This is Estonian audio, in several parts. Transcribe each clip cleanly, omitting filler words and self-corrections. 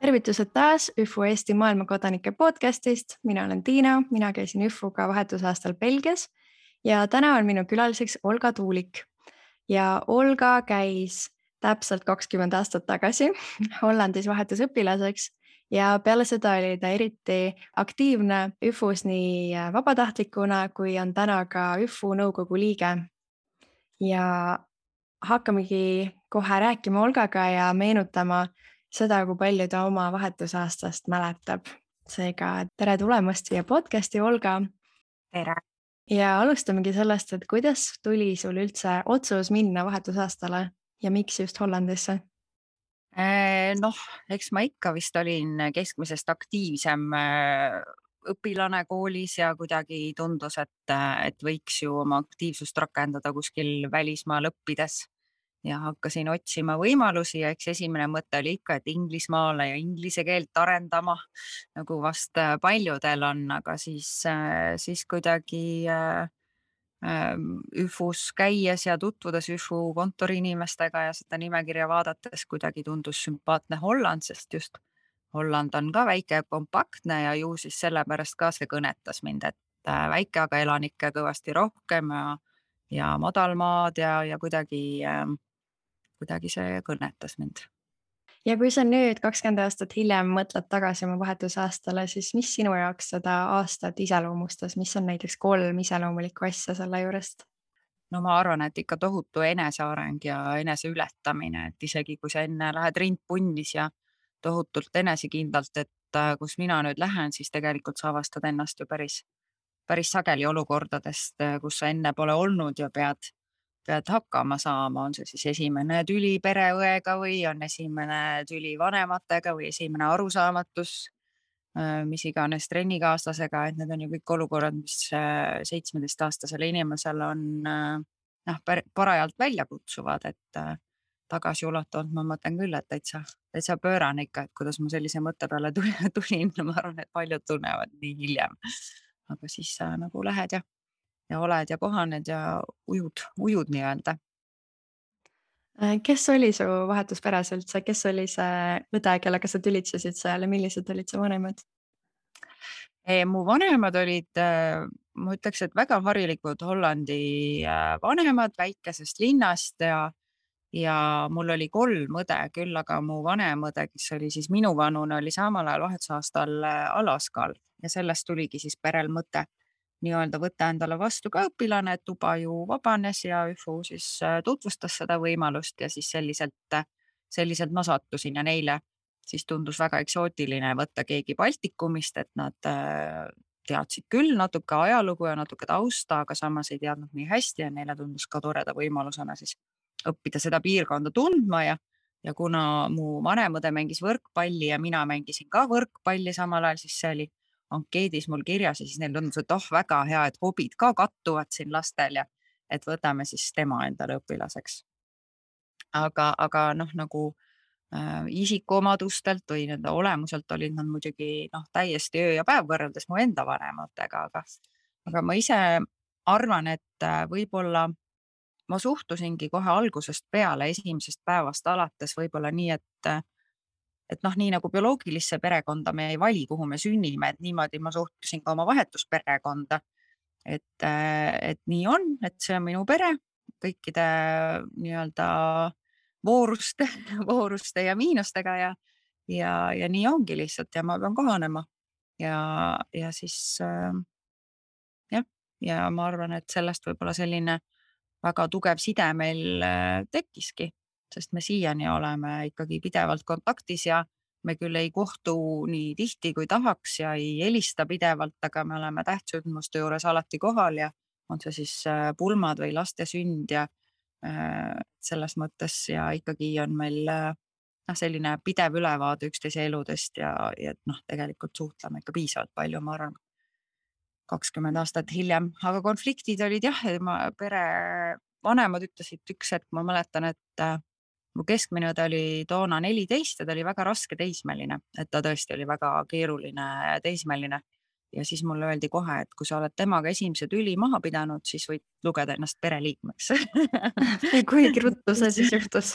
Tervitused taas ÜFU Eesti maailmakodanike podcastist. Mina olen Tiina, mina käisin ÜFUga vahetusaastal Belgias ja täna on minu külaliseks Olga Tuulik. Ja Olga käis täpselt 20 aastat tagasi Hollandis vahetusõpilaseks ja peale seda oli ta eriti aktiivne ÜFUs nii vabatahtlikuna kui on täna ka ÜFU nõukogu liige. Ja hakkamegi kohe rääkima Olgaga ja meenutama seda, kui palju ta oma vahetusaastast mäletab. Seega tere tulemast siia podcasti, Olga. Tere! Ja alustamegi sellest, et kuidas tuli sul üldse otsus minna vahetusaastale ja miks just Hollandisse? Eks ma ikka vist olin keskmisest aktiivsem õpilane koolis ja kuidagi tundus, et võiks ju oma aktiivsust rakendada kuskil välismaal õppides. Ja hakkasin otsima võimalusi ja eks esimene mõte oli ikka, et Inglismaale ja inglise keelt arendama, nagu vast paljudel on, aga siis kuidagi ÜFUs käies ja tutvudes ÜFU kontori inimestega ja seda nimekirja vaadates kuidagi tundus sümpaatne Holland, sest just Holland on ka väike ja kompaktne ja ju siis sellepärast ka see kõnetas mind, et väike, aga elanikke kõvasti rohkem ja madalmaad ja kuidagi see kõnetas mind. Ja kui sa nüüd 20 aastat hiljem mõtled tagasi oma vahetusaastale, siis mis sinu jaoks seda aastat iseloomustas? Mis on näiteks 3 iseloomulikku asja selle juurest? No ma arvan, et ikka tohutu eneseareng ja eneseületamine, et isegi kui sa enne lähed rind punnis ja tohutult enesekindlalt, et kus mina nüüd lähen, siis tegelikult sa avastad ennast ju päris sageli olukordadest, kus sa enne pole olnud ja pead hakkama saama, on see siis esimene tüli pereõega või on esimene tüli vanematega või esimene arusaamatus, mis iganes trennikaaslasega, et need on ju kõik olukorrad, mis 17-aastasele inimesele on parajalt välja kutsuvad, et tagasiulatuvalt ma mõtlen küll, et täitsa pöörane ikka, et kuidas ma sellise mõtte peale tulin, ma arvan, et paljud tunnevad nii hiljem, aga siis sa nagu lähed ja oled ja kohaned ja ujud nii-öelda. Kes oli su vahetusperes üldse? Kes oli see õde, kellega sa tülitsesid seal ja millised olid su vanemad? Mu vanemad olid, ma ütleks, et väga harilikud Hollandi vanemad väikesest linnast ja mul oli 3 õde küll, aga mu vanem õde, kes oli siis minuvanune, oli samal ajal vahetusaastal Alaskal ja sellest tuligi siis perel mõte nii-öelda võtta endale vastu ka õpilane, et tuba ju vabanes ja ÜFU siis tutvustas seda võimalust ja siis selliselt ma sattusin ja neile siis tundus väga eksootiline võtta keegi Baltikumist, et nad teadsid küll natuke ajalugu ja natuke tausta, aga samas ei teadnud nii hästi ja neile tundus ka toreda võimalusena siis õppida seda piirkonda tundma ja kuna mu vanem õde mängis võrkpalli ja mina mängisin ka võrkpalli samal ajal, siis see oli ankeedis mul kirjas ja siis neil tundus, et väga hea, et hobid ka kattuvad siin lastel ja et võtame siis tema endale õpilaseks. Aga nagu isikuomadustelt või nende olemuselt olid nad muidugi täiesti öö ja päev võrreldes mu enda vanematega, aga ma ise arvan, et võib-olla ma suhtusingi kohe algusest peale, esimesest päevast alates võib-olla nii, et nii nagu bioloogilisse perekonda me ei vali, kuhu me sünnime, et niimoodi ma suhtusin ka oma vahetusperekonda. Et nii on, et see on minu pere kõikide nii-öelda vooruste ja miinustega ja nii ongi lihtsalt ja ma pean kohanema. Ja siis ja ma arvan, et sellest võib-olla selline väga tugev side meil tekkiski, sest me siiani oleme ikkagi pidevalt kontaktis ja me küll ei kohtu nii tihti kui tahaks ja ei helista pidevalt, aga me oleme tähtsündmuste juures alati kohal ja on see siis pulmad või laste sünd ja selles mõttes ja ikkagi on meil selline pidev ülevaade üksteise eludest ja tegelikult suhtleme ikka piisavalt palju, ma arvan, 20 aastat hiljem, aga konfliktid olid jah, pere vanemad ütlesid üks hetk, ma mäletan, et mu keskmine õde oli toona 14 ja ta oli väga raske teismeline, et ta tõesti oli väga keeruline teismeline. Ja siis mulle öeldi kohe, et kui sa oled temaga esimese tüli maha pidanud, siis võid lugeda ennast pereliikmeks. Kui ruttu see siis juhtus?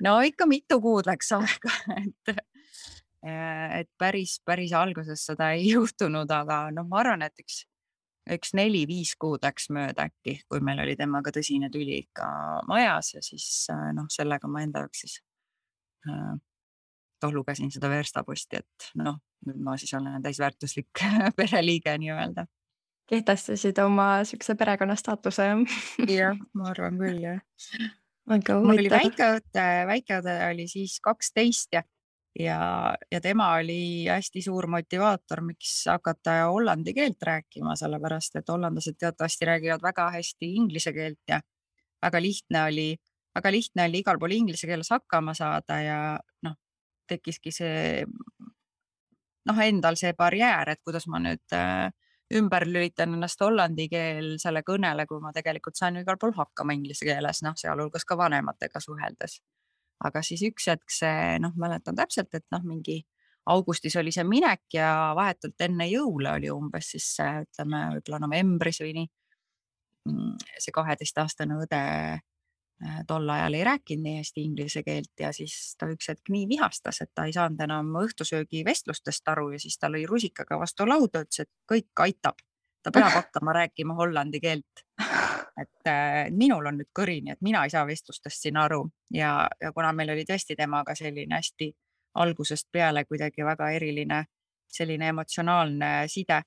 No ikka mitu kuud läks aega, et päris alguses seda ei juhtunud, aga noh, ma arvan, et üks 4-5 kuud läks mööda äkki, kui meil oli temaga tõsine tüli ikka majas ja siis noh, sellega ma enda jaoks siis lugesin seda verstaposti, et noh, nüüd ma siis olen täisväärtuslik pereliige nii-öelda. Kehtestasid oma siukse perekonna staatuse. Jah, ma arvan küll, jah. Väga Mul oli huvitav. väikeõde oli siis 12 ja tema oli hästi suur motivaator, miks hakata hollandi keelt rääkima, sellepärast et hollandlased teatavasti räägivad väga hästi inglise keelt ja väga lihtne oli igal pool inglise keeles hakkama saada ja noh, tekkiski see endal see barjäär, et kuidas ma nüüd ümber lülitan ennast hollandi keelsele kõnele, kui ma tegelikult saan igal pool hakkama inglise keeles, sealhulgas ka vanematega suheldes. Aga siis üks hetk see, mäletan täpselt, et mingi augustis oli see minek ja vahetult enne jõule oli umbes siis ütleme võib-olla novembris või nii. See 12-aastane õde tol ajal ei rääkinud nii hästi inglise keelt ja siis ta üks hetk nii vihastas, et ta ei saanud enam õhtusöögi vestlustest aru ja siis ta lõi rusikaga vastu lauda, ütles, et kõik aitab. Ta peab hakkama rääkima hollandi keelt. Et minul on nüüd kõrini, et mina ei saa vestlustest siin aru ja kuna meil oli tõesti temaga selline hästi algusest peale kuidagi väga eriline selline emotsionaalne side,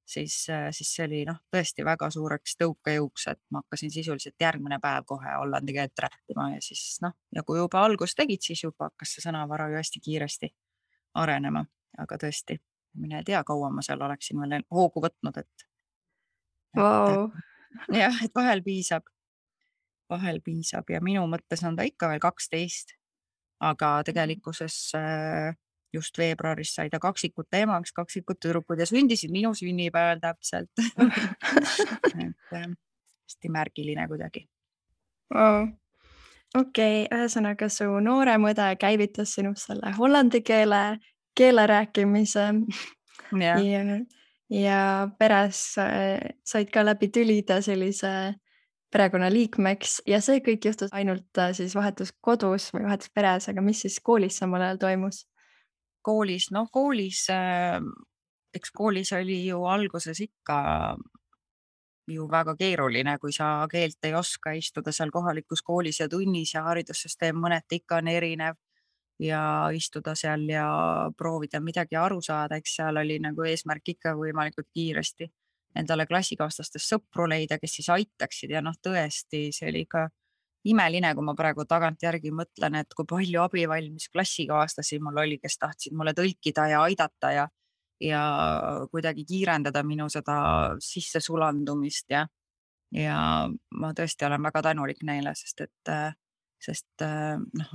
siis see oli tõesti väga suureks tõukejõuks, et ma hakkasin sisuliselt järgmine päev kohe hollandi keelt rääkima ja siis ja kui juba algust tegid, siis juba hakkas see sõnavara ju hästi kiiresti arenema, aga tõesti, mine tea, kaua ma seal oleksin veel hoogu võtnud, et Vau. jah, et vahel piisab ja minu mõttes on ta ikka veel 12, aga tegelikkuses just veebruaris sai ta kaksikute emaks, kaksikud tüdrukud ja sündisid minu sünnipäeval täpselt. Hästi märgiline kuidagi. Vau. Okei, ühesõnaga su noorem õde käivitas sinust selle hollandi keele rääkimise ja peres said ka läbi tülida sellise perekonnaliikmeks ja see kõik juhtus ainult siis vahetus kodus või vahetus peres, aga mis siis koolis samal ajal toimus? Koolis, eks koolis oli ju alguses ikka ju väga keeruline, kui sa keelt ei oska, istuda seal kohalikus koolis ja tunnis ja haridussüsteem mõneti ikka on erinev ja istuda seal ja proovida midagi aru saada, eks seal oli nagu eesmärk ikka võimalikult kiiresti endale klassikaaslastest sõpru leida, kes siis aitaksid ja tõesti, see oli ikka imeline, kui ma praegu tagantjärgi mõtlen, et kui palju abivalmis klassikaaslasi mul oli, kes tahtsid mulle tõlkida ja aidata ja kuidagi kiirendada minu seda sissesulandumist ja ma tõesti olen väga tänulik neile, sest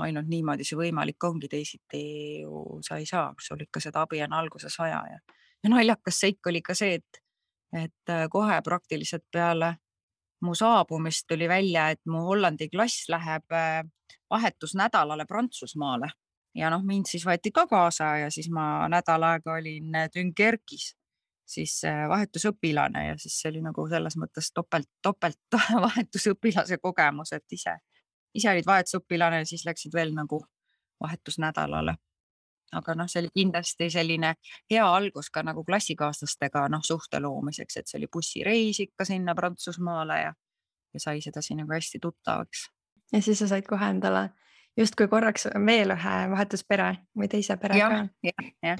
ainult niimoodi see võimalik ongi, teisiti ju sa ei saa, sul ikka seda abi on alguses vaja ja naljakas seik oli ka see, et kohe praktiliselt peale mu saabumist tuli välja, et mu hollandi klass läheb vahetusnädalale Prantsusmaale ja mind siis võeti ka kaasa ja siis ma nädal aega olin Dunkerque'is siis vahetusõpilane ja siis see oli nagu selles mõttes topelt vahetusõpilase kogemus, et ise olid vahetusõpilane ja siis läksid veel nagu vahetusnädalale. Aga see oli kindlasti selline hea algus ka nagu klassikaaslastega suhte loomiseks, et see oli bussireis ikka sinna Prantsusmaale ja sai sedasi nagu hästi tuttavaks. Ja siis sa said kohe endale justkui korraks veel ühe vahetuspere või teise pere ka. jah,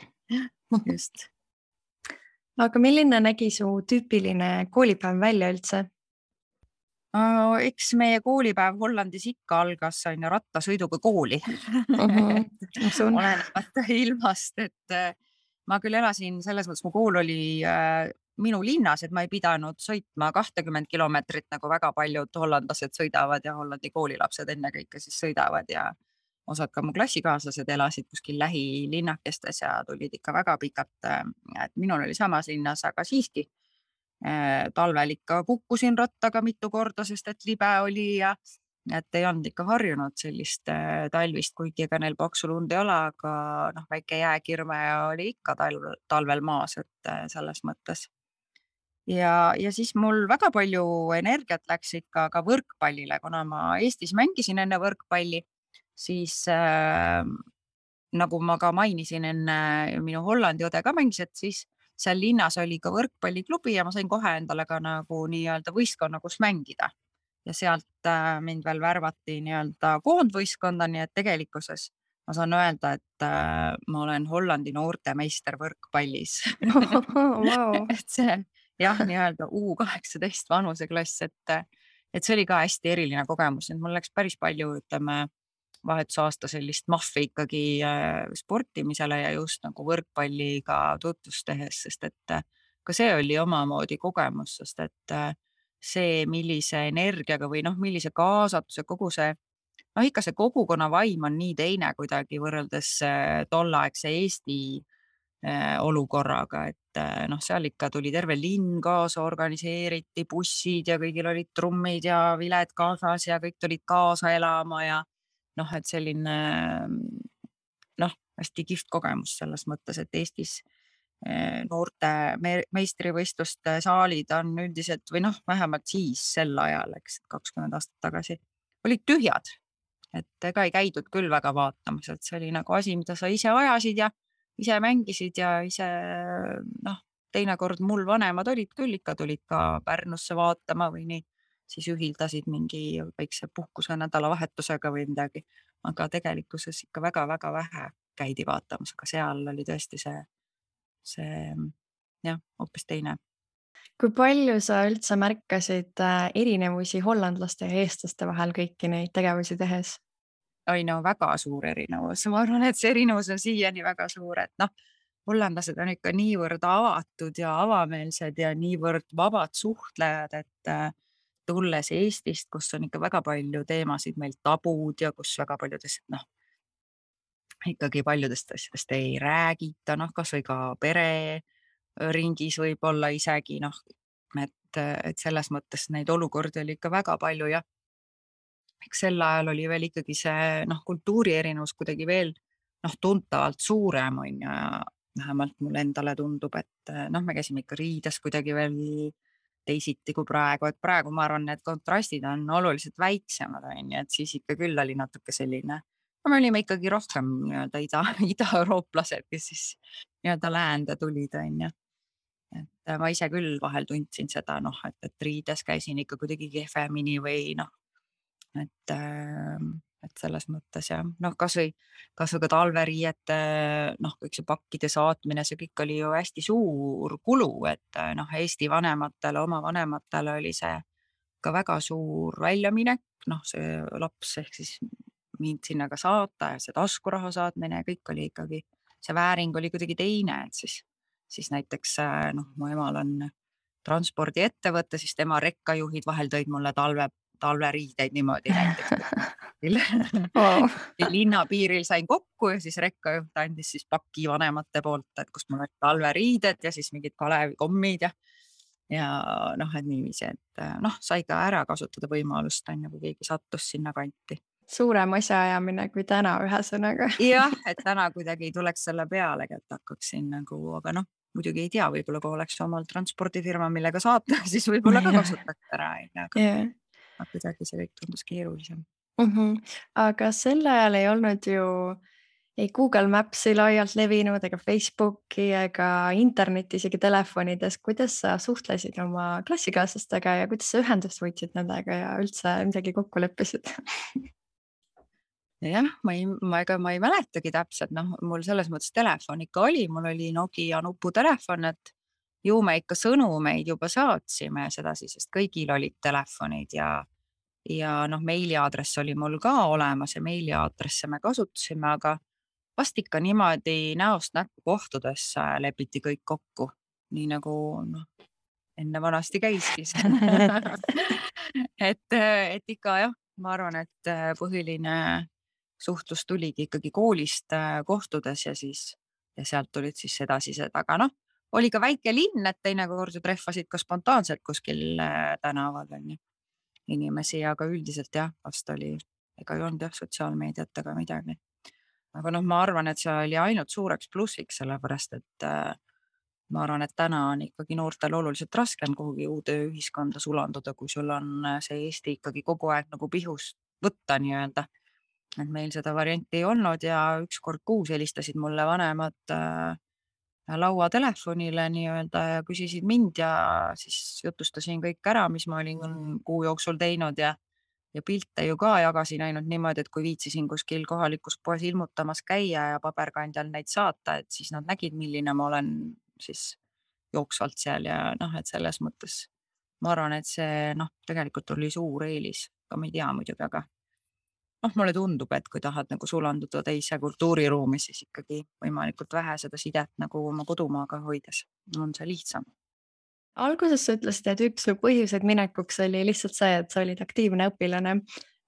just. Aga milline nägi su tüüpiline koolipäev välja üldse? Eks meie koolipäev Hollandis ikka algas rattasõiduga kooli. Olenemata ilmast, et ma küll elasin selles mõttes, mu kool oli minu linnas, et ma ei pidanud sõitma 20 kilomeetrit, nagu väga paljud hollandlased sõidavad ja Hollandi koolilapsed ennekõike siis sõidavad ja osad ka mu klassikaaslased elasid kuskil lähilinnakestes ja tulid ikka väga pikalt, et minul oli samas linnas, aga siiski talvel ikka kukkusin rattaga mitu korda, sest et libe oli ja et ei olnud ikka harjunud sellist talvist, kuigi ega neil paksu lund ei ole, aga väike jääkirme oli ikka talvel maas, et selles mõttes. Ja siis mul väga palju energiat läks ikka ka võrkpallile, kuna ma Eestis mängisin enne võrkpalli, siis nagu ma ka mainisin enne, minu Hollandi õde ka mängis, et siis seal linnas oli ka võrkpalliklubi ja ma sain kohe endale ka nagu nii-öelda võistkonna, kus mängida. Ja sealt mind veel värvati nii-öelda koondvõistkonda, nii et tegelikkuses ma saan öelda, et ma olen Hollandi noortemeister võrkpallis. Vau. et see jah, nii-öelda U18 vanuseklass, et see oli ka hästi eriline kogemus, et mul läks päris palju, ütleme, vahetusaasta sellist mahvi ikkagi sportimisele ja just nagu võrkpalliga tutvust tehes, sest et ka see oli omamoodi kogemus, sest et see, millise energiaga või noh, millise kaasatuse, kogu see noh, ikka see kogukonna vaim on nii teine kuidagi võrreldes tolleaegse Eesti olukorraga, et noh, seal ikka tuli terve linn kaasa, organiseeriti bussid ja kõigil olid trummid ja viled kaasas ja kõik tulid kaasa elama ja noh, et selline noh, hästi kihvt kogemus selles mõttes, et Eestis noorte meistrivõistluste saalid on üldiselt või noh, vähemalt siis sel ajal, eks 20 aastat tagasi, olid tühjad. Et ega ei käidud küll väga vaatamas, et see oli nagu asi, mida sa ise ajasid ja ise mängisid ja ise noh, teinekord mul vanemad olid küll, ikka tulid ka Pärnusse vaatama või nii, siis ühildasid mingi väikse puhkuse nädalavahetusega või midagi, aga tegelikkuses ikka väga-väga vähe käidi vaatamas, aga seal oli tõesti see jah, hoopis teine. Kui palju sa üldse märkasid erinevusi hollandlaste ja eestlaste vahel kõiki neid tegevusi tehes? Oi no väga suur erinevus, ma arvan, et see erinevus on siiani väga suur, et noh, hollandlased on ikka niivõrd avatud ja avameelsed ja niivõrd vabad suhtlejad, et tulles Eestist, kus on ikka väga palju teemasid meil tabud ja kus väga paljudest noh, ikkagi paljudest asjadest ei räägita, noh, kasvõi ka pereringis võib-olla isegi noh, et selles mõttes neid olukordi oli ikka väga palju ja eks sel ajal oli veel ikkagi see noh, kultuuri erinevus kuidagi veel noh, tuntavalt suurem on ju ja vähemalt mulle endale tundub, et noh, me käisime ikka riides kuidagi veel teisiti kui praegu, et praegu ma arvan, need kontrastid on oluliselt väiksemad on ju, et siis ikka küll oli natuke selline, no me olime ikkagi rohkem nii-öelda ida-eurooplased, kes siis nii-öelda läände tulid on ju. Et ma ise küll vahel tundsin seda noh, et riides käisin ikka kuidagi kehvemini või noh, et selles mõttes jah, noh, kasvõi ka talveriiete, noh, kõik see pakkide saatmine, see kõik oli ju hästi suur kulu, et noh, Eesti vanematele, oma vanematele oli see ka väga suur väljaminek, noh, see laps ehk siis mind sinna ka saata ja see taskuraha saatmine ja kõik oli ikkagi, see vääring oli kuidagi teine, et siis näiteks noh, mu emal on transpordiettevõte, siis tema rekkajuhid vahel tõid mulle talveriideid niimoodi näiteks. Wow. Linnapiiril sain kokku ja siis rekkajuht andis siis paki vanemate poolt, et kust mul olid talveriided ja siis mingid Kalevi-kommid ja noh, et niiviisi, et noh, sai ka ära kasutada võimalust on ju, kui keegi sattus sinna kanti. Suurem asjaajamine kui täna, ühesõnaga. jah, et täna kuidagi ei tuleks selle pealegi, et hakkaksin nagu, aga noh, muidugi ei tea, võib-olla kui oleks omal transpordifirma, millega saata, siis võib-olla ka kasutaks ära, Yeah. aga kuidagi see kõik tundus keerulisem. Aga sel ajal ei olnud ju ei Google Maps'i laialt levinud ega Facebooki ega internetti isegi telefonides. Kuidas sa suhtlesid oma klassikaaslastega ja kuidas sa ühendust võtsid nendega ja üldse midagi kokku leppisid? jah, ega ma ei mäletagi täpselt, noh, mul selles mõttes telefon ikka oli, mul oli Nokia nuputelefon, et ju me ikka sõnumeid juba saatsime sedasi, sest kõigil olid telefonid ja noh, meiliaadress oli mul ka olemas ja meiliaadresse me kasutasime, aga vast ikka niimoodi näost näkku kohtudes lepiti kõik kokku, nii nagu noh, enne vanasti käiski et ikka jah, ma arvan, et põhiline suhtlus tuligi ikkagi koolist kohtudes ja sealt tulid siis edasised, aga noh, oli ka väike linn, et teinekord ju trehvasid ka spontaanselt kuskil tänaval on ju inimesi, aga üldiselt jah, vast oli, ega ei olnud jah sotsiaalmeediat ega midagi. aga noh, ma arvan, et see oli ainult suureks plussiks, sellepärast et ma arvan, et täna on ikkagi noortel oluliselt raskem kuhugi uude ühiskonda sulanduda, kui sul on see Eesti ikkagi kogu aeg nagu pihus võtta nii-öelda. et meil seda varianti ei olnud ja 1 kord kuus helistasid mulle vanemad lauatelefonile nii-öelda ja küsisid mind ja siis jutustasin kõik ära, mis ma olin kuu jooksul teinud ja pilte ju ka jagasin ainult niimoodi, et kui viitsisin kuskil kohalikus poes ilmutamas käia ja paberkandjal neid saata, et siis nad nägid, milline ma olen siis jooksvalt seal ja noh, et selles mõttes ma arvan, et see noh, tegelikult oli suur eelis, ka ma ei tea muidugi, aga noh, mulle tundub, et kui tahad nagu sulanduda teise kultuuriruumi, siis ikkagi võimalikult vähe seda sidet nagu oma kodumaaga hoides on see lihtsam. Alguses sa ütlesid, et üks su põhjuseid minekuks oli lihtsalt see, et sa olid aktiivne õpilane.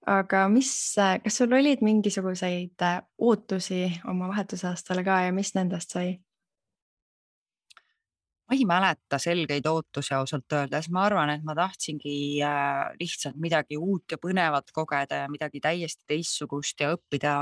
Aga kas sul olid mingisuguseid ootusi oma vahetusaastale ka ja mis nendest sai? Ma ei mäleta selgeid ootusi ausalt öeldes, ma arvan, et ma tahtsingi lihtsalt midagi uut ja põnevat kogeda ja midagi täiesti teistsugust ja õppida.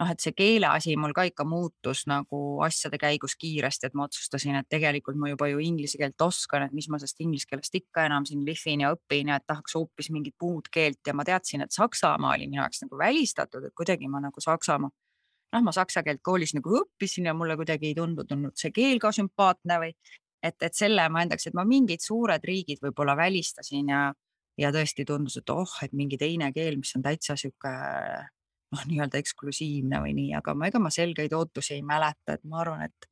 Noh, et see keele asi mul ka ikka muutus nagu asjade käigus kiiresti, et ma otsustasin, et tegelikult ma juba ju inglise keelt oskan, et mis ma sellest inglise keelest ikka enam siin lihvin ja õpin ja et tahaks hoopis mingit muud keelt ja ma teadsin, et Saksamaa oli minu jaoks nagu välistatud, et kuidagi ma nagu ma saksa keelt koolis nagu õppisin ja mulle kuidagi ei tundunud see keel ka sümpaatne või et selle ma endaks, et ma mingid suured riigid võib-olla välistasin ja tõesti tundus, et et mingi teine keel, mis on täitsa sihuke noh, nii-öelda eksklusiivne või nii, aga ega ma selgeid ootusi ei mäleta, et ma arvan, et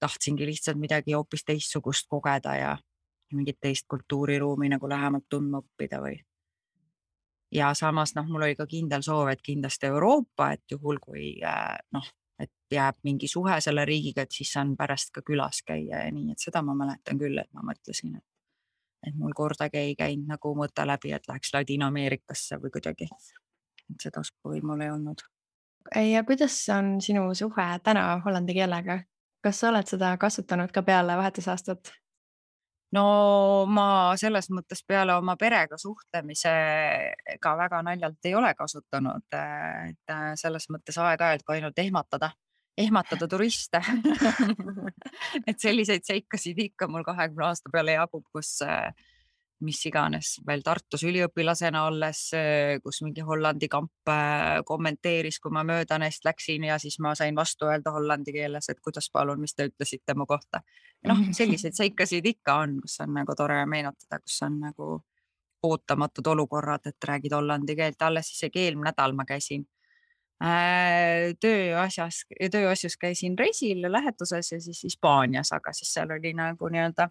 tahtsingi lihtsalt midagi hoopis teistsugust kogeda ja mingit teist kultuuriruumi nagu lähemalt tundma õppida või. Ja samas noh, mul oli ka kindel soov, et kindlasti Euroopa, et juhul kui noh, et jääb mingi suhe selle riigiga, et siis saan pärast ka külas käia ja nii, et seda ma mäletan küll, et ma mõtlesin, et mul kordagi ei käinud nagu mõte läbi, et läheks Ladina-Ameerikasse või kuidagi. Et seda soovi mul ei olnud. Ja kuidas on sinu suhe täna hollandi keelega? Kas sa oled seda kasutanud ka peale vahetusaastat? No ma selles mõttes peale oma perega suhtlemise ka väga naljalt ei ole kasutanud, et selles mõttes aeg-ajalt ka ainult ehmatada turiste. Et selliseid seikasid ikka mul 20 aasta peale jagub, kus mis iganes veel Tartus üliõpilasena olles, kus mingi Hollandi kamp kommenteeris, kui ma mööda neist läksin ja siis ma sain vastu öelda hollandi keeles, et kuidas palun, mis te ütlesite mu kohta. Noh, selliseid seikasid ikka on, kus on nagu tore meenutada, kus on nagu ootamatud olukorrad, et räägid hollandi keelt. Alles isegi eelmine nädal ma käisin tööasjus käisin reisil lähetuses ja siis Hispaanias, aga siis seal oli nagu nii-öelda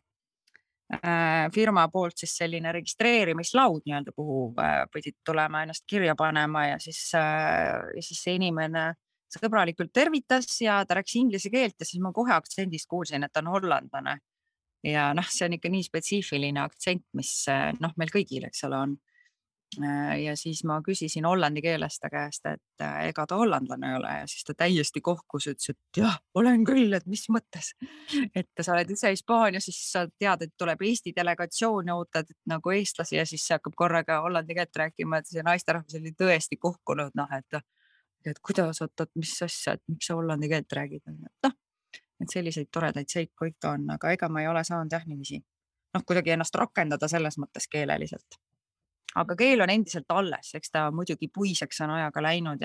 firma poolt siis selline registreerimislaud nii-öelda, kuhu pidid tulema ennast kirja panema ja siis see inimene sõbralikult tervitas ja ta rääkis inglise keelt ja siis ma kohe aktsendist kuulsin, et ta on hollandlane. Ja noh, see on ikka nii spetsiifiline aktsent, mis noh, meil kõigil, eks ole, on. Ja siis ma küsisin hollandi keeles ta käest, et ega ta hollandlane ei ole ja siis ta täiesti kohkus, ütles, et jah, olen küll, et mis mõttes. Et sa oled ise Hispaanias, siis sa tead, et tuleb Eesti delegatsioon ja ootad nagu eestlasi ja siis see hakkab korraga hollandi keelt rääkima, et see naisterahvas oli tõesti kohkunud, noh, et kuidas, oot, mis asja, et miks sa hollandi keelt räägid, noh, et selliseid toredaid seiku ikka on, aga ega ma ei ole saanud jah niiviisi, noh, kuidagi ennast rakendada selles mõttes keeleliselt. Aga keel on endiselt alles, eks ta muidugi puiseks on ajaga läinud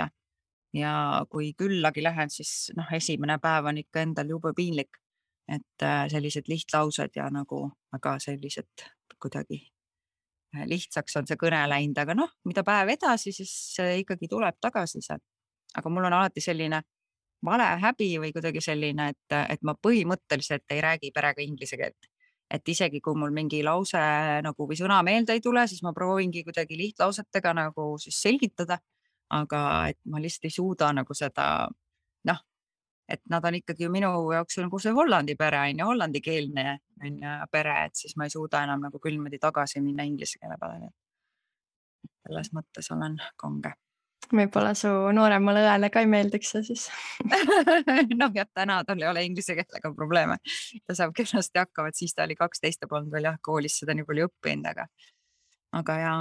ja kui küllagi lähen, siis noh, esimene päev on ikka endal jube piinlik, et sellised lihtlaused ja nagu väga sellised kuidagi lihtsaks on see kõne läinud, aga noh, mida päev edasi, siis ikkagi tuleb tagasi see. Aga mul on alati selline valehäbi või kuidagi selline, et ma põhimõtteliselt ei räägi perega inglise keelt. Et isegi kui mul mingi lause nagu või sõna meelde ei tule, siis ma proovingi kuidagi lihtlausetega nagu siis selgitada. Aga et ma lihtsalt ei suuda nagu seda, noh, et nad on ikkagi ju minu jaoks nagu see Hollandi pere on ju, hollandikeelne on ju pere, et siis ma ei suuda enam nagu küll niimoodi tagasi minna inglise keele peale. Selles mõttes olen kange. Võib-olla su nooremale õele ka ei meeldiks see siis. Noh, jah, täna tal ei ole inglise keelega probleeme. Ta saab kenasti hakkama, et siis ta oli 12 ja polnud veel jah, koolis seda nii palju õppinud, aga ja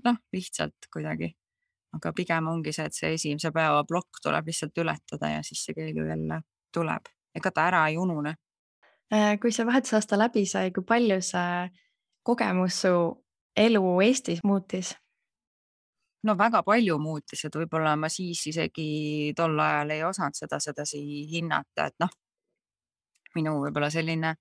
noh, lihtsalt kuidagi. Aga pigem ongi see, et see esimese päeva plokk tuleb lihtsalt ületada ja siis see keel ju jälle tuleb. Ega ta ära ei unune. Kui see vahetusaasta läbi sai, kui palju see kogemus su elu Eestis muutis? no väga palju muutis, et võib-olla ma siis isegi tol ajal ei osanud seda sedasi hinnata, et noh, minu võib-olla selline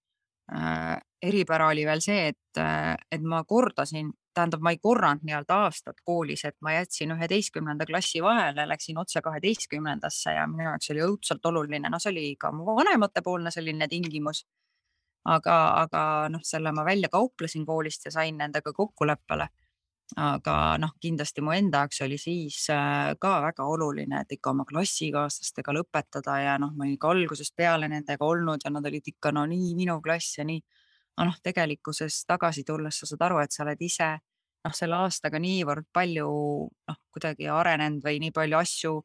eripära oli veel see, et ma kordasin, tähendab, ma ei korranud nii-öelda aastat koolis, et ma jätsin 11. klassi vahele, läksin otse 12. ja minu jaoks oli õudselt oluline, no see oli ka mu vanematepoolne selline tingimus. aga noh, selle ma välja kauplesin koolist ja sain nendega kokkuleppele. Aga noh, kindlasti mu enda jaoks oli siis ka väga oluline, et ikka oma klassikaaslastega lõpetada ja noh, ma olin ka algusest peale nendega olnud ja nad olid ikka no nii minu klass ja nii. Aga noh, tegelikkuses tagasi tulles sa saad aru, et sa oled ise noh, selle aastaga niivõrd palju noh, kuidagi arenenud või nii palju asju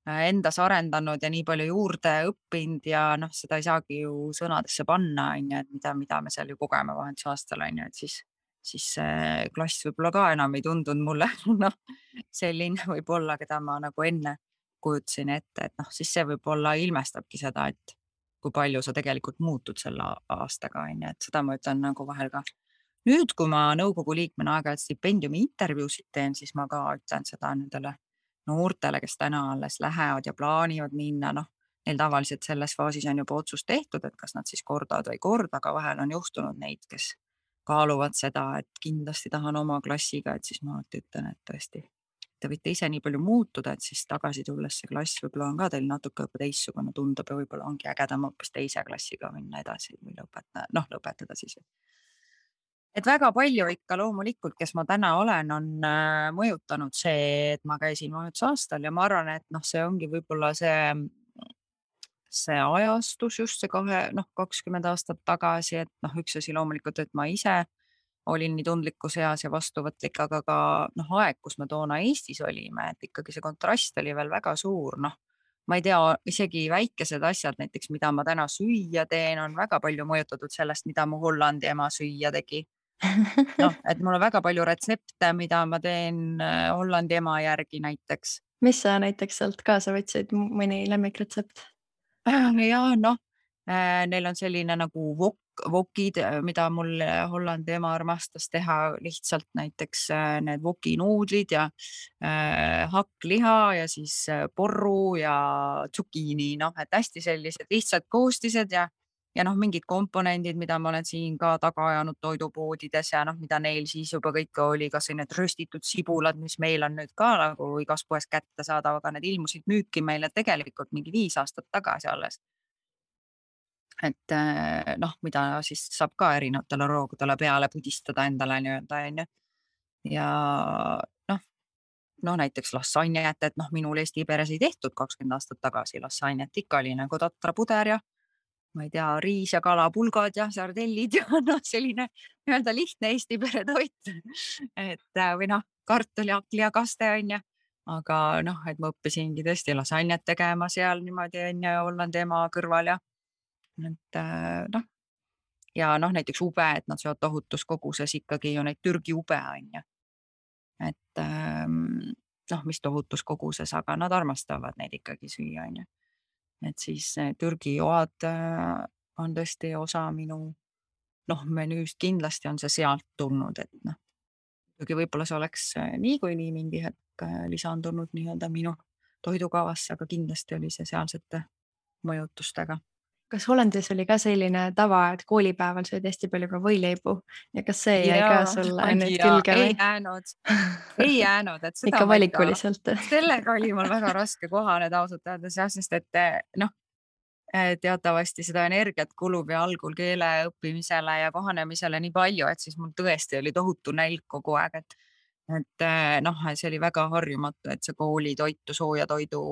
endas arendanud ja nii palju juurde õppinud ja noh, seda ei saagi ju sõnadesse panna, on ju, et mida me seal ju kogeme vahetusaastal, on ju, et siis see klass võib-olla ka enam ei tundunud mulle noh, selline võib-olla, keda ma nagu enne kujutasin ette, et noh, siis see võib-olla ilmestabki seda, et kui palju sa tegelikult muutud selle aastaga, on ju, et seda ma ütlen nagu vahel ka. Nüüd, kui ma nõukogu liikmena aeg-ajalt stipendiumi intervjuusid teen, siis ma ka ütlen seda nendele noortele, kes täna alles lähevad ja plaanivad minna, noh, neil tavaliselt selles faasis on juba otsus tehtud, et kas nad siis kordavad või ei korda, aga vahel on juhtunud neid, kes kaaluvad seda, et kindlasti tahan oma klassiga, et siis ma alati ütlen, et tõesti, te võite ise nii palju muutuda, et siis tagasi tulles see klass võib-olla on ka teil natuke juba teistsugune, tundub ja võib-olla ongi ägedam hoopis teise klassiga minna edasi või lõpetada siis. Et väga palju ikka loomulikult, kes ma täna olen, on mõjutanud see, et ma käisin vahetusaastal ja ma arvan, et noh, see ongi võib-olla see ajastus just see 20 aastat tagasi, et noh, üks asi loomulikult, et ma ise olin nii tundlikus eas ja vastuvõtlik, aga ka noh, aeg, kus me toona Eestis olime, et ikkagi see kontrast oli veel väga suur, noh. Ma ei tea, isegi väikesed asjad näiteks, mida ma täna süüa teen, on väga palju mõjutatud sellest, mida mu Hollandi ema süüa tegi. Noh, et mul on väga palju retsepte, mida ma teen Hollandi ema järgi näiteks. mis sa näiteks sealt kaasa võtsid, mõni lemmikretsept? Ja noh, neil on selline nagu wokid, mida mul Hollandi ema armastas teha, lihtsalt näiteks need wokinuudlid ja hakkliha ja siis porru ja tsukiini, noh, et hästi sellised lihtsad koostised ja noh, mingid komponendid, mida ma olen siin ka taga ajanud toidupoodides ja noh, mida neil siis juba kõike oli, kas või need röstitud sibulad, mis meil on nüüd ka nagu igas poes kättesaadav, aga need ilmusid müüki meile tegelikult mingi 5 aastat tagasi alles. Et noh, mida siis saab ka erinevatele roogudele peale pudistada endale nii-öelda, on ju. Ja noh, näiteks lassanjet, et noh, minul Eesti peres ei tehtud 20 aastat tagasi lassanjet, ikka oli nagu tatrapuder ja ma ei tea, riis ja kalapulgad ja sardellid ja noh, selline nii-öelda lihtne Eesti pere toit. Et või noh, kartul ja hakkliakaste on ju. Aga noh, et ma õppisingi tõesti lasanjat tegema seal niimoodi on ju Hollandi ema kõrval ja et noh, ja noh, näiteks ube, et nad söövad tohutus koguses ikkagi ju neid Türgi ube on ju. Et noh, mis tohutus koguses, aga nad armastavad neid ikkagi süüa on ju. Et siis Türgi joad on tõesti osa minu noh, menüüst, kindlasti on see sealt tulnud, et noh, muidugi võib-olla see oleks niikuinii mingi hetk lisandunud nii-öelda minu toidukavasse, aga kindlasti oli see sealsete mõjutustega. Kas Hollandis oli ka selline tava, et koolipäeval söödi hästi palju ka võileibu ja kas see jäi ka sulle nüüd külge ei või? jäänud, ei jäänud, et seda ikka ma valikuliselt? sellega oli mul väga raske kohaneda ausalt öeldes jah, sest et noh, teatavasti seda energiat kulub ja algul keele õppimisele ja kohanemisele nii palju, et siis mul tõesti oli tohutu nälg kogu aeg, et noh, see oli väga harjumatu, et see koolitoitu sooja toidu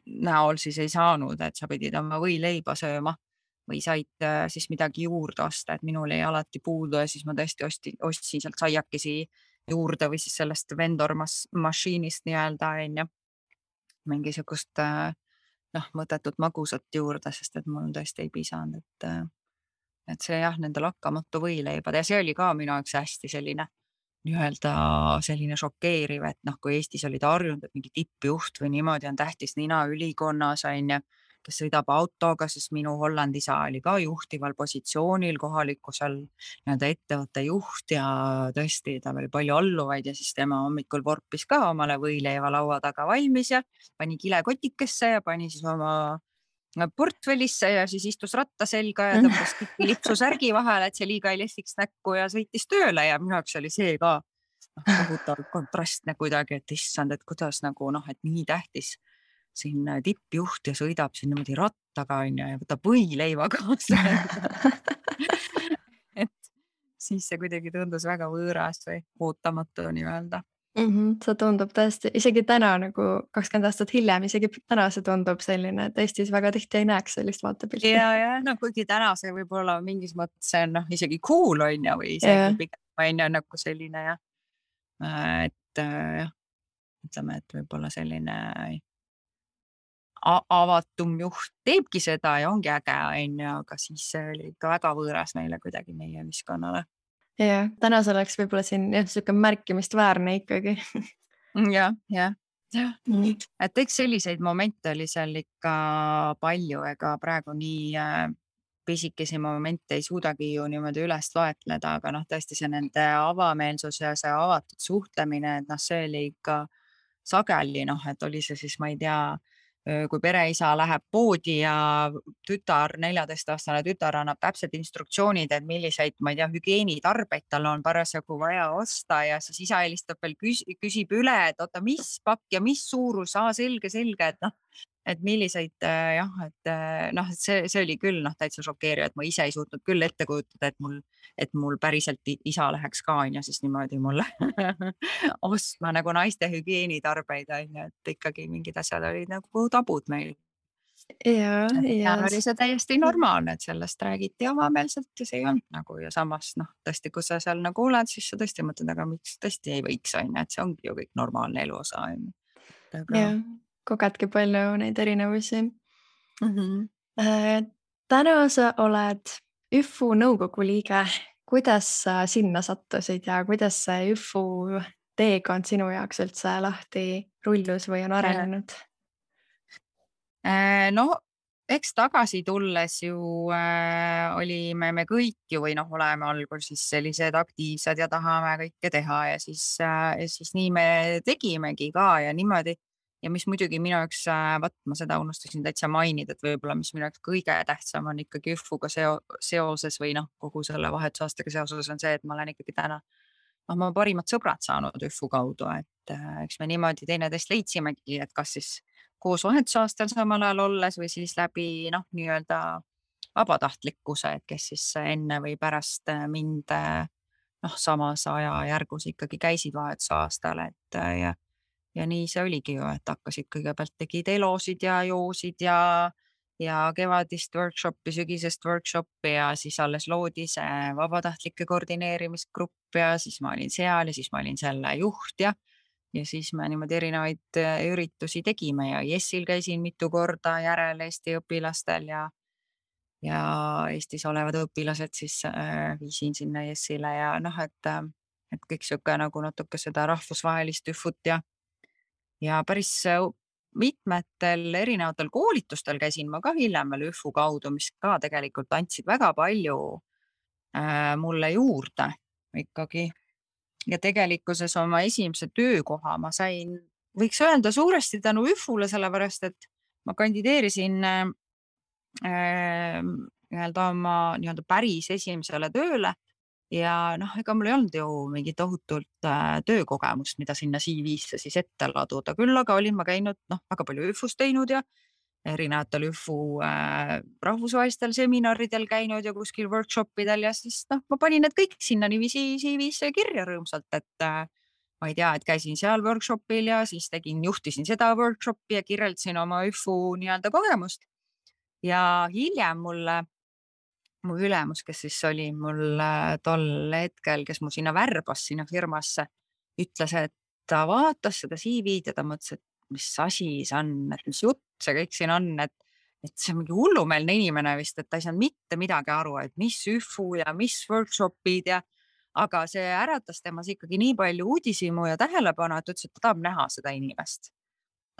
näol siis ei saanud, et sa pidid oma võileiba sööma või said siis midagi juurde osta, et minul jäi alati puudu ja siis ma tõesti ostsin sealt saiakesi juurde või siis sellest vendor mašiinist nii-öelda on ju, mingisugust noh, mõttetut magusat juurde, sest et mul tõesti ei pisanud, et see jah, nende lakkamatu võileibad ja see oli ka minu jaoks hästi selline nii-öelda selline šokeeriv, et noh, kui Eestis olid harjunud, et mingi tippjuht või niimoodi on tähtis nina ülikonnas on ju, kes sõidab autoga, siis minu Hollandi isa oli ka juhtival positsioonil kohaliku seal nii-öelda ettevõtte juht ja tõesti, tal oli palju alluvaid ja siis tema hommikul vorpis ka omale võileiva laua taga valmis ja pani kilekotikesse ja pani siis oma portfellisse ja siis istus ratta selga ja tõmbas lipsusärgi vahele, et see liiga ei lehviks näkku ja sõitis tööle ja minu jaoks oli see ka kohutavalt kontrastne kuidagi, et issand, et kuidas nagu et nii tähtis siin tippjuht ja sõidab siin niimoodi rattaga ja võtab võileiva kaasa. et siis see kuidagi tundus väga võõras või ootamatu nii-öelda. See tundub tõesti, isegi täna nagu 20 aastat hiljem, isegi täna see tundub selline, et Eestis väga tihti ei näeks sellist vaatepilti. Ja kuigi täna see võib-olla mingis mõttes on isegi cool on ju, või isegi pigem on ju nagu selline et ütleme, et võib-olla selline avatum juht teebki seda ja ongi äge on ju, aga siis see oli ikka väga võõras meile kuidagi meie ühiskonnale. Ja täna see oleks võib-olla siin selline märkimist väärne ikkagi. jah. Et eks selliseid momente oli seal ikka palju, ega praegu nii pisikesi momente ei suudagi ju niimoodi üles loetleda, aga tõesti see nende avameelsus ja see avatud suhtlemine, et see oli ikka sageli, et oli see siis, ma ei tea, kui pereisa läheb poodi ja 14-aastane tütar annab täpselt instruktsioonid, et milliseid, ma ei tea, hügieenitarbeid tal on parasjagu vaja osta ja siis isa helistab veel, küsib üle, et oota, mis pakk ja mis suurus, selge, et milliseid et see oli küll täitsa šokeeriv, et ma ise ei suutnud küll ette kujutada, et mul päriselt isa läheks ka on ju siis niimoodi mulle ostma nagu naiste hügieenitarbeid on ju, et ikkagi mingid asjad olid nagu tabud meil. Ja oli see täiesti normaalne, et sellest räägiti avameelselt ja see ei olnud nagu ja samas tõesti, kui sa seal nagu oled, siis sa tõesti mõtled, aga miks tõesti ei võiks on ju, et see ongi ju kõik normaalne elu osa on ju. Jah, kogedki palju neid erinevusi. Täna sa oled ÜFU nõukogu liige. Kuidas sa sinna sattusid ja kuidas see ÜFU teekond sinu jaoks üldse lahti rullus või on arenenud? Eks tagasi tulles ju olime me kõik ju või oleme algul siis sellised aktiivsed ja tahame kõike teha ja siis nii me tegimegi ka ja niimoodi. Ja mis muidugi minu jaoks, ma seda unustasin täitsa mainida, et võib-olla mis minu jaoks kõige tähtsam on ikkagi ÜFU-ga seoses või kogu selle vahetusaastaga seoses on see, et ma olen ikkagi täna ma parimad sõbrad saanud ÜFU kaudu, et eks me niimoodi teineteist leidsimegi, et kas siis koos vahetusaastal samal ajal olles või siis läbi nii-öelda vabatahtlikkuse, et kes siis enne või pärast mind samas ajajärgus ikkagi käisid vahetusaastal, et ja nii see oligi ju, et hakkasid kõigepealt tegid elosid ja joosid ja kevadist workshopi, sügisest workshopi ja siis alles loodi see vabatahtlike koordineerimisgrupp ja siis ma olin seal ja siis ma olin selle juht ja siis me niimoodi erinevaid üritusi tegime ja Jessil käisin mitu korda järel Eesti õpilastel ja Eestis olevad õpilased siis viisin sinna Jessile ja et kõik sihuke nagu natuke seda rahvusvahelist ÜFU-t ja päris mitmetel erinevatel koolitustel käisin ma ka hiljem veel ÜFU kaudu, mis ka tegelikult andsid väga palju mulle juurde ikkagi. Ja tegelikkuses oma esimese töökoha ma sain, võiks öelda suuresti tänu ÜFU-le, sellepärast, et ma kandideerisin oma päris esimesele tööle ja ega mul ei olnud ju mingi tohutult töökogemust, mida sinna CV-sse siis ette laduda. Küll aga olin ma käinud väga palju ÜFU-s teinud ja erinevatel ÜFU rahvusvahelistel seminaridel käinud ja kuskil workshopidel ja siis ma panin need kõik sinna niiviisi CV-sse kirja rõõmsalt, et ma ei tea, et käisin seal workshopil ja siis juhtisin seda workshopi ja kirjeldasin oma ÜFU nii-öelda kogemust. Ja hiljem mu ülemus, kes siis oli mul tol hetkel, kes mu sinna värbas sinna firmasse, ütles, et ta vaatas seda CV-d ja ta mõtles, et mis asi see on, et mis jutt see kõik siin on, et see on mingi hullumeelne inimene vist, et ta ei saanud mitte midagi aru, et mis ÜFU ja mis workshopid aga see äratas temas ikkagi nii palju uudishimu ja tähelepanu, et ütles, et ta tahab näha seda inimest.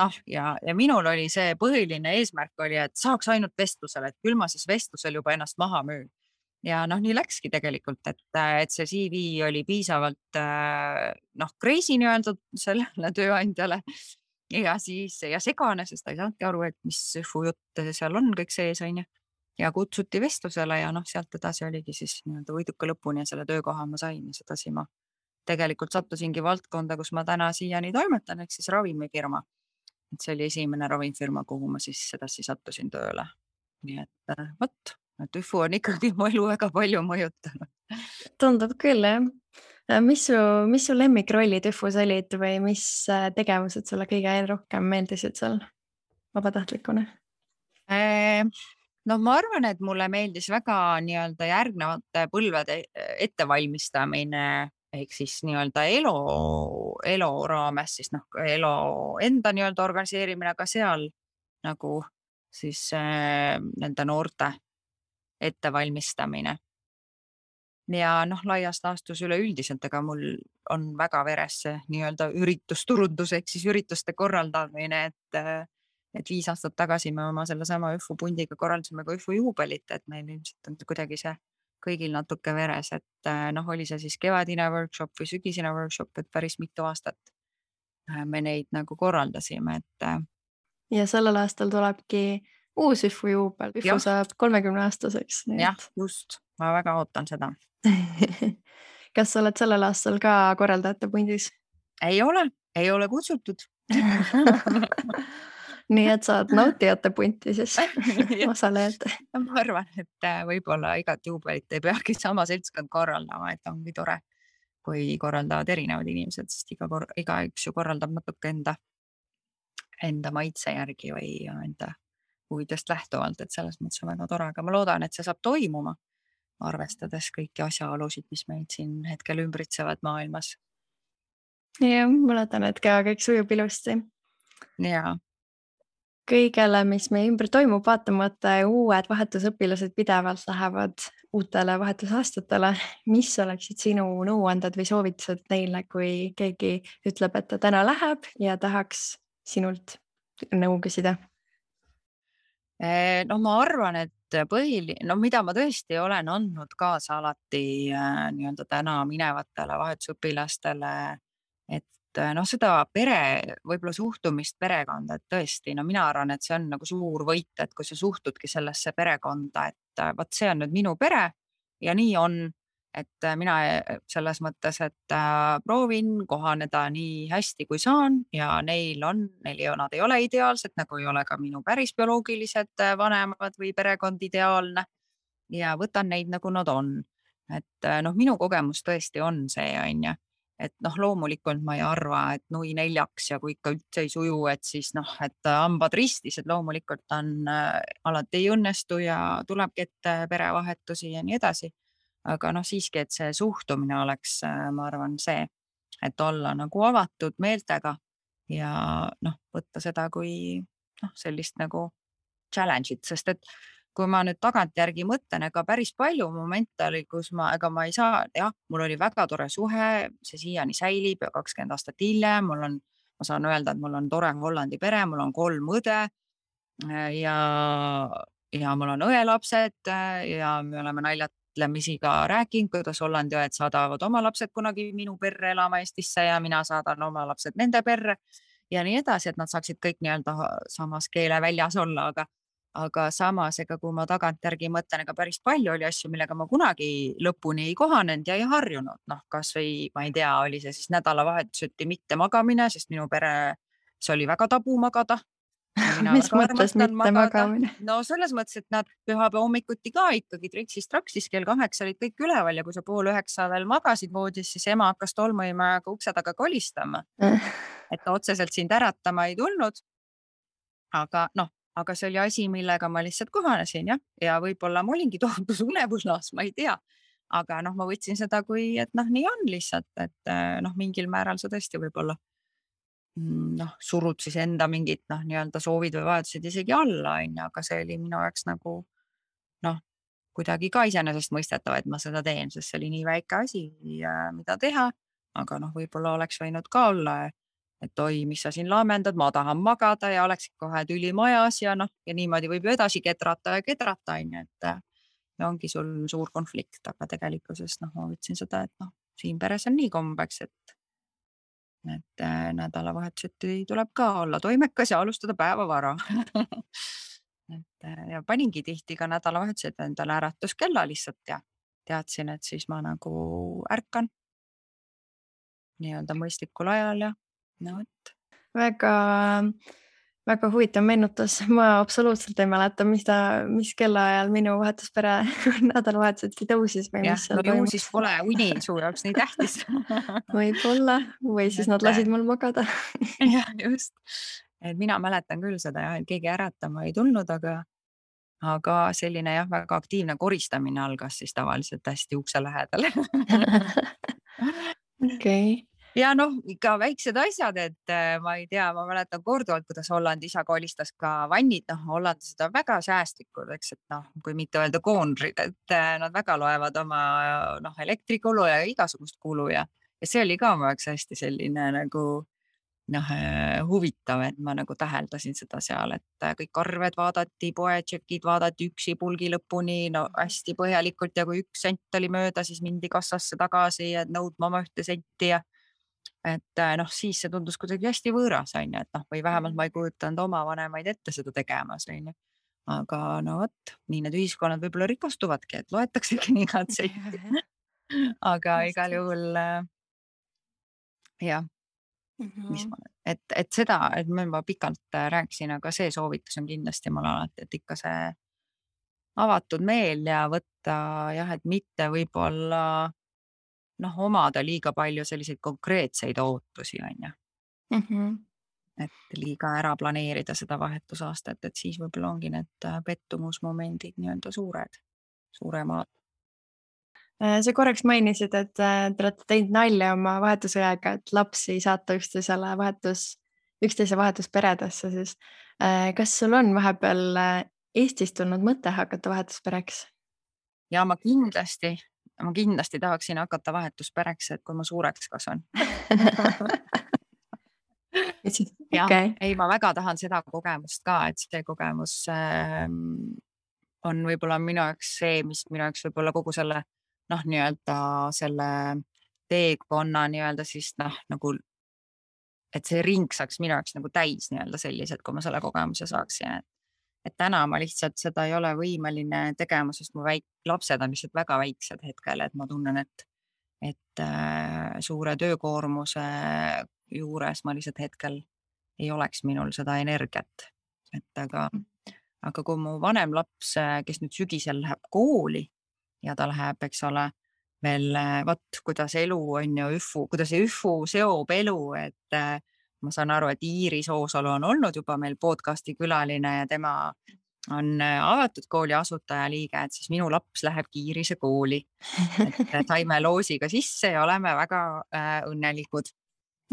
noh, ja minul oli see põhiline eesmärk oli, et saaks ainult vestlusele, et küll ma siis vestlusel juba ennast maha müün. Ja noh, nii läkski tegelikult, et see CV oli piisavalt noh, crazy nii-öelda sellele tööandjale ja siis ja segane, sest ta ei saanudki aru, et mis jutt seal on kõik sees, on ju. Ja kutsuti vestlusele ja noh, sealt edasi oligi siis nii-öelda võiduka lõpuni ja selle töökoha ma sain ja sedasi ma tegelikult sattusingi valdkonda, kus ma täna siiani toimetan, ehk siis ravimifirma. Et see oli esimene ravimifirma, kuhu ma siis sedasi sattusin tööle. Nii et vot, et ÜFU on ikkagi mu elu väga palju mõjutanud. Tundub küll, jah. Mis su lemmikrollid ÜFUs olid või mis tegevused sulle kõige rohkem meeldisid seal vabatahtlikuna? No ma arvan, et mulle meeldis väga nii-öelda järgnevate põlvede ettevalmistamine ehk siis nii-öelda elu raames siis noh, elu enda nii-öelda organiseerimine, aga seal nagu siis nende noorte ettevalmistamine. Ja noh, laias laastus üleüldiselt, ega mul on väga veres see nii-öelda üritusturundus ehk siis ürituste korraldamine, et 5 aastat tagasi me oma sellesama ÜFU pundiga korraldasime ka ÜFU juubelit, et meil ilmselt on kuidagi see kõigil natuke veres, et noh, oli see siis kevadine workshop või sügisene workshop, et päris mitu aastat me neid nagu korraldasime, et Ja sellel aastal tulebki uus ÜFU juubel. ÜFU jah, saab 30-aastaseks. jah, just, ma väga ootan seda. Kas sa oled sellel aastal ka korraldajate pundis? Ei ole kutsutud. Nii et saad nautijate punti siis osalejad. Ma arvan, et võib-olla igat juubelit ei peagi sama seltskond korraldama, et ongi tore, kui korraldavad erinevad inimesed, sest igaüks ju korraldab natuke enda maitse järgi või enda huvidest lähtuvalt, et selles mõttes on väga tore, aga ma loodan, et see saab toimuma, arvestades kõiki asjaolusid, mis meid siin hetkel ümbritsevad maailmas. Ja ma loodan, et ka kõik sujub ilusti. Ja Kõigele, mis meie ümber toimub, vaatamata uued vahetusõpilased pidevalt lähevad uutele vahetusaastatele. Mis oleksid sinu nõuanded või soovitused neile, kui keegi ütleb, et ta täna läheb ja tahaks sinult nõu küsida? no ma arvan, et mida ma tõesti olen andnud kaasa alati nii-öelda täna minevatele vahetusõpilastele, et noh, seda võib-olla suhtumist perekonda, et tõesti, no mina arvan, et see on nagu suur võit, et kui sa suhtudki sellesse perekonda, et vot see on nüüd minu pere ja nii on, et mina selles mõttes, et proovin kohaneda nii hästi, kui saan ja nad ei ole ideaalsed, nagu ei ole ka minu päris bioloogilised vanemad või perekond ideaalne ja võtan neid, nagu nad on. Et noh, minu kogemus tõesti on see, on ju, et noh, loomulikult ma ei arva, et nui neljaks ja kui ikka üldse ei suju, et siis noh, et hambad ristis, et loomulikult alati ei õnnestu ja tulebki ette perevahetusi ja nii edasi. Aga noh, siiski, et see suhtumine oleks, ma arvan, see, et olla nagu avatud meeltega ja noh, võtta seda kui noh, sellist nagu challenge'it, sest et kui ma nüüd tagantjärgi mõtlen, ega päris palju momente oli, kus ega ma ei saa, jah, mul oli väga tore suhe, see siiani säilib ja 20 aastat hiljem ma saan öelda, et mul on tore Hollandi pere, mul on 3 õde ja mul on õelapsed ja me oleme naljatlemisi ka rääkinud, kuidas Hollandi õed saadavad oma lapsed kunagi minu perre elama Eestisse ja mina saadan oma lapsed nende perre ja nii edasi, et nad saaksid kõik nii-öelda samas keeleväljas olla, aga samas, ega kui ma tagantjärgi mõtlen, ega päris palju oli asju, millega ma kunagi lõpuni ei kohanenud ja ei harjunud. Noh, kas või ma ei tea, oli see siis nädalavahetuseti mitte magamine, sest minu pere, see oli väga tabu magada. Mis mõttes mitte magamine? No selles mõttes, et nad pühapäeva hommikuti ka ikkagi tritsis-traksis kell 8 olid kõik üleval ja kui sa 8:30 veel magasid voodis, siis ema hakkas tolmuimajaga ukse taga kolistama. Et ta otseselt sind äratama ei tulnud. Aga see oli asi, millega ma lihtsalt kohanesin ja võib-olla ma olingi tohutus unevuslas, ma ei tea. Aga noh, ma võtsin seda kui, et noh, nii on lihtsalt, et noh, mingil määral sa tõesti võib-olla noh, surud siis enda mingid noh, nii-öelda soovid või vajadused isegi alla, on ju, aga see oli minu jaoks nagu noh, kuidagi ka iseenesestmõistetav, et ma seda teen, sest see oli nii väike asi, mida teha, aga noh, võib-olla oleks võinud ka olla et oi, mis sa siin laamendad, ma tahan magada ja oleksid kohe tüli majas ja noh, ja niimoodi võib ju edasi kedrata, on ju, et ja ongi sul suur konflikt, aga tegelikkuses noh, ma võtsin seda, et noh, siin peres on nii kombeks, et nädalavahetuseti tuleb ka olla toimekas ja alustada päeva vara. Ja paningi tihti ka nädalavahetused endale äratuskella lihtsalt ja teadsin, et siis ma nagu ärkan nii-öelda mõistlikul ajal ja no vot. väga, väga huvitav meenutus. Ma absoluutselt ei mäleta, mis kellaajal minu vahetuspere nädalavahetuseti tõusis või Jah, mis seal no ju toimus. siis pole uni su jaoks nii tähtis. Võib-olla või siis nad lasid mul magada. Jah, just. Et mina mäletan küll seda jah, et keegi äratama ei tulnud, aga selline jah, väga aktiivne koristamine algas siis tavaliselt hästi ukse lähedal. Okei. Ja noh, ikka väiksed asjad, et ma ei tea, ma mäletan korduvalt, kuidas Hollandi isa kolistas ka vannid, noh, hollandlased on väga säästlikud, eks, et noh, kui mitte öelda koonrid, et nad väga loevad oma noh, elektrikulu ja igasugust kulu ja see oli ka mu jaoks hästi selline nagu noh, huvitav, et ma nagu täheldasin seda seal, et kõik arved vaadati, poetšekid vaadati üksi pulgi lõpuni, no hästi põhjalikult ja kui 1 sent oli mööda, siis mindi kassasse tagasi ja nõudma oma 1 senti ja et noh, siis see tundus kuidagi hästi võõras, on ju, et noh, või vähemalt ma ei kujutanud oma vanemaid ette seda tegemas, on ju. Aga no vot, nii need ühiskonnad võib-olla rikastuvadki, et loetaksegi nii igat senti. Aga igal juhul jah, mis ma, et seda, et ma juba pikalt rääkisin, aga see soovitus on kindlasti mul alati, et ikka see avatud meel ja võtta jah, et mitte võib-olla noh, omada liiga palju selliseid konkreetseid ootusi, on ju. Et liiga ära planeerida seda vahetusaastat, et siis võib-olla ongi need pettumusmomendid nii-öelda suuremad. Sa korraks mainisid, et te olete teinud nalja oma vahetusõjaga, et lapsi saata üksteise vahetusperedesse siis. Kas sul on vahepeal Eestist tulnud mõte hakata vahetuspereks? Ja ma kindlasti tahaksin hakata vahetuspereks, et kui ma suureks kasvan. Jah, ei, ma väga tahan seda kogemust ka, et see kogemus on võib-olla minu jaoks see, mis minu jaoks võib-olla kogu selle noh, nii-öelda selle teekonna nii-öelda siis noh, nagu et see ring saaks minu jaoks nagu täis nii-öelda sellised, kui ma selle kogemuse saaksin. Et täna ma lihtsalt seda ei ole võimeline tegema, sest mu lapsed on lihtsalt väga väiksed hetkel, et ma tunnen, et suure töökoormuse juures ma lihtsalt hetkel ei oleks minul seda energiat. Et aga kui mu vanem laps, kes nüüd sügisel läheb kooli ja ta läheb, eks ole, veel vot, kuidas elu on ju kuidas üfu seob elu, et ma saan aru, et Iiris Oosalu on olnud juba meil podcasti külaline ja tema on avatud kooli asutajaliige, et siis minu laps lähebki Iirise kooli. Et saime loosiga sisse ja oleme väga õnnelikud.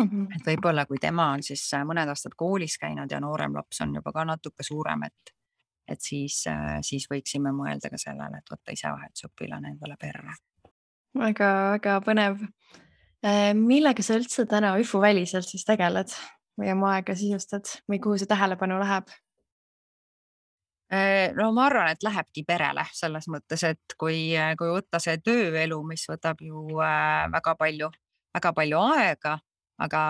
Et võib-olla kui tema on siis mõned aastad koolis käinud ja noorem laps on juba ka natuke suurem, et siis võiksime mõelda ka sellele, et võtta ise vahetusõpilane endale perre. Väga põnev. Millega sa üldse täna üfuväliselt siis tegeled või oma aega sisustad või kuhu see tähelepanu läheb? No ma arvan, et lähebki perele selles mõttes, et kui võtta see tööelu, mis võtab ju väga palju aega, aga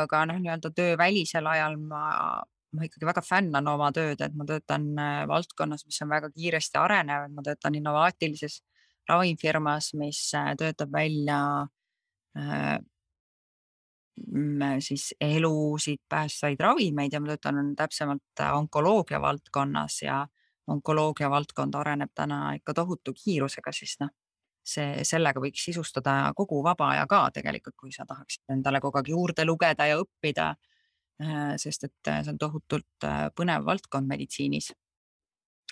ka noh, nii-öelda töövälisel ajal ma ikkagi väga fännan oma tööd, et ma töötan valdkonnas, mis on väga kiiresti arenev, ma töötan innovaatilises ravimfirmas, mis töötab välja siis elusid päästvaid ravimeid ja ma töötan täpsemalt onkoloogia valdkonnas ja onkoloogia valdkond areneb täna ikka tohutu kiirusega, siis noh, sellega võiks sisustada kogu vaba aja ka tegelikult, kui sa tahaksid endale kogu aeg juurde lugeda ja õppida, sest et see on tohutult põnev valdkond meditsiinis.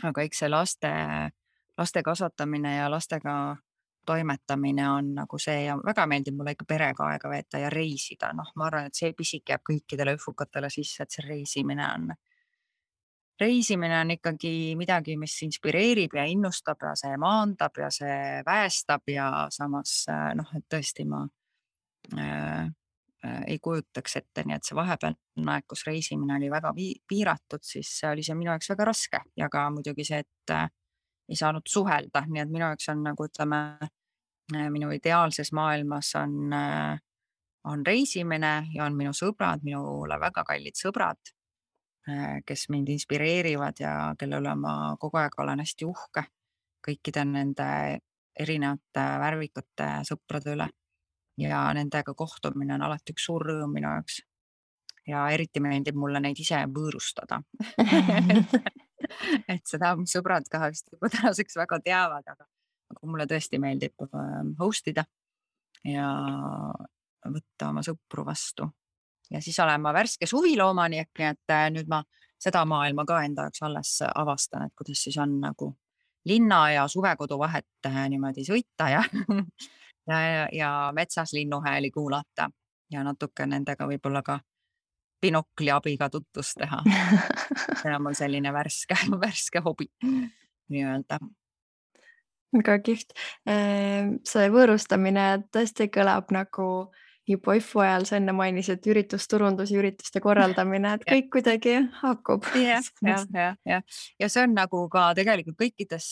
Aga eks see laste kasvatamine ja lastega toimetamine on nagu see ja väga meeldib mulle ikka perega aega veeta ja reisida. Noh, ma arvan, et see pisik jääb kõikidele üfukatele sisse, et see reisimine on ikkagi midagi, mis inspireerib ja innustab ja see maandab ja see väestab ja samas noh, et tõesti ma ei kujutaks ette, nii et see vahepealne aeg, kus reisimine oli väga piiratud, siis oli see minu jaoks väga raske ja ka muidugi see, et ei saanud suhelda, nii et minu jaoks on nagu ütleme, minu ideaalses maailmas on reisimine ja on minu sõbrad, minule väga kallid sõbrad, kes mind inspireerivad ja kelle üle ma kogu aeg olen hästi uhke kõikide nende erinevate värvikate sõprade üle. Ja nendega kohtumine on alati üks suur rõõm minu jaoks. Ja eriti meeldib mulle neid ise võõrustada. et seda mu sõbrad ka vist juba tänaseks väga teavad, aga mulle tõesti meeldib host ida ja võtta oma sõpru vastu. Ja siis olen ma värske suviloomanik, nii et nüüd ma seda maailma ka enda jaoks alles avastan, et kuidas siis on nagu linna ja suvekodu vahet niimoodi sõita ja metsas linnuhääli kuulata ja natuke nendega võib-olla ka binokli abiga tutvust teha. See on mul selline värske hobi nii-öelda. Väga kihvt. See võõrustamine tõesti kõlab nagu juba IFU ajal, sa enne mainisid üritusturundus ja ürituste korraldamine, et kõik kuidagi haakub. Ja see on nagu ka tegelikult kõikides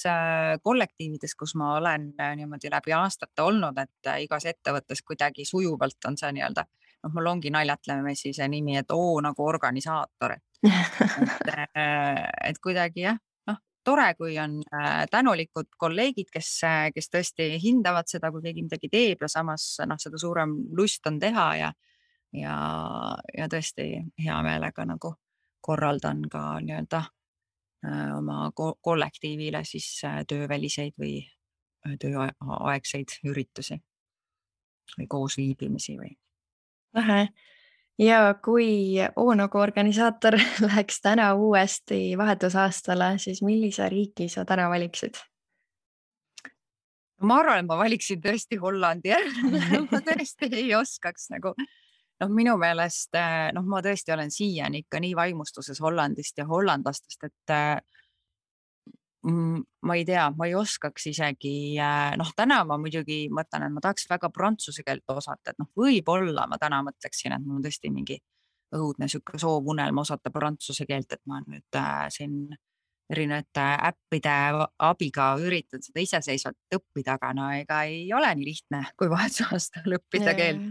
kollektiivides, kus ma olen niimoodi läbi aastate olnud, et igas ettevõttes kuidagi sujuvalt on see nii-öelda, mul ongi naljatlemisi see nimi, et nagu organisaator. Et kuidagi jah, tore, kui on tänulikud kolleegid, kes tõesti hindavad seda, kui keegi midagi teeb ja samas seda suurem lust on teha ja tõesti hea meelega nagu korraldan ka nii-öelda oma kollektiivile siis tööväliseid või tööaegseid üritusi või koosviibimisi või. Ja kui Oonogu organisaator läheks täna uuesti vahetusaastale, siis millise riiki sa täna valiksid? Ma arvan, et ma valiksin tõesti Hollandi. Ma tõesti ei oskaks nagu. Minu meelest, ma tõesti olen siiani ikka nii vaimustuses Hollandist ja hollandlastest, et ma ei tea, ma ei oskaks isegi, täna ma muidugi mõtlen, et ma tahaks väga prantsuse keelt osata, et võib-olla ma täna mõtleksin, et mul on tõesti mingi õudne sükke soovunelm osata prantsuse keelt, et ma nüüd siin erinevate äppide abiga üritan seda iseseisvalt õppida, aga no ega ei ole nii lihtne, kui vahetusaastal õppida keelt.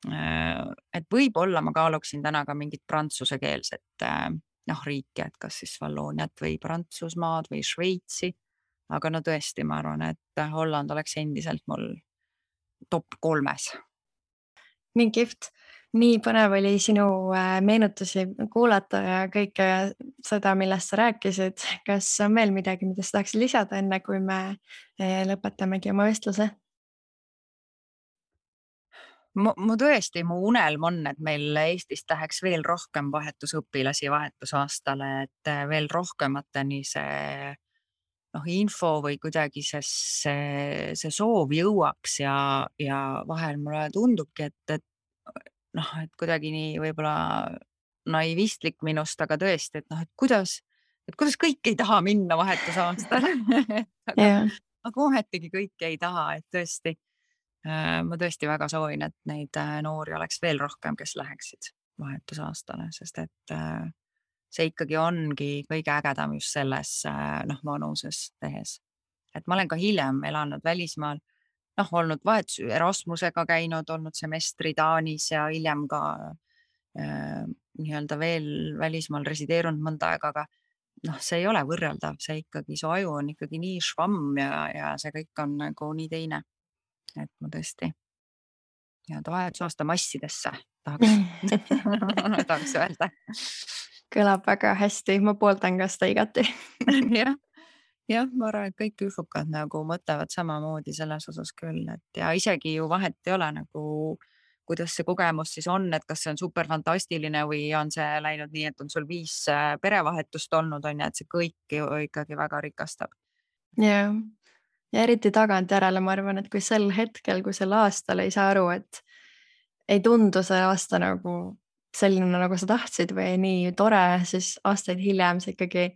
Et võib-olla ma kaaluksin täna ka mingit prantsuse keelset riiki, et kas siis Vallooniat või Prantsusmaad või Šveitsi, aga tõesti, ma arvan, et Holland oleks endiselt mul top 3. Nii kihvt, nii põnev oli sinu meenutusi kuulata ja kõike seda, millest sa rääkisid. Kas on veel midagi, mida sa tahaksid lisada enne, kui me lõpetamegi oma vestluse? Mu tõesti, mu unelm on, et meil Eestis läheks veel rohkem vahetusõpilasi vahetusaastale, et veel rohkemateni see info või kuidagi see soov jõuaks ja vahel mulle tundubki, et kuidagi nii võib-olla naivistlik minust, aga tõesti, et kuidas kõik ei taha minna vahetusaastale. Aga ometigi kõik ei taha, et tõesti. Ma tõesti väga soovin, et neid noori oleks veel rohkem, kes läheksid vahetusaastale, sest et see ikkagi ongi kõige ägedam just selles vanuses tehes. Et ma olen ka hiljem elanud välismaal, olnud Erasmusega käinud, olnud semestri Taanis ja hiljem ka nii-öelda veel välismaal resideerunud mõnda aega, aga see ei ole võrreldav, see ikkagi, su aju on ikkagi nii švamm ja see kõik on nagu nii teine. Et ma tõesti vahetusaasta massidesse tahaks öelda. Kõlab väga hästi, ma pooldan ka seda igati. Jah, ma arvan, et kõik üfukad nagu mõtlevad samamoodi selles osas küll, et ja isegi ju vahet ei ole nagu, kuidas see kogemus siis on, et kas see on super fantastiline või on see läinud nii, et on sul 5 perevahetust olnud, et see kõik ju ikkagi väga rikastab. Jah. Ja eriti tagantjärele ma arvan, et kui sel hetkel, kui sel aastal ei saa aru, et ei tundu see aasta nagu selline, nagu sa tahtsid või nii tore, siis aastaid hiljem sa ikkagi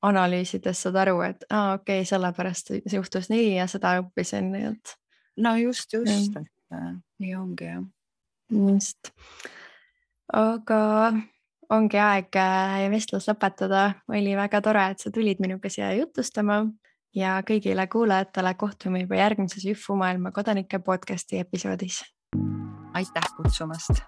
analüüsides saad aru, et okei, sellepärast juhtus nii ja seda õppisin. No just, et nii ongi jah. Just. Aga ongi aeg vestlus lõpetada. Oli väga tore, et sa tulid minuga siia jutustama ja kõigile kuulajatele kohtume juba järgmises Jõhvu maailma kodanike podcasti episoodis. Aitäh kutsumast!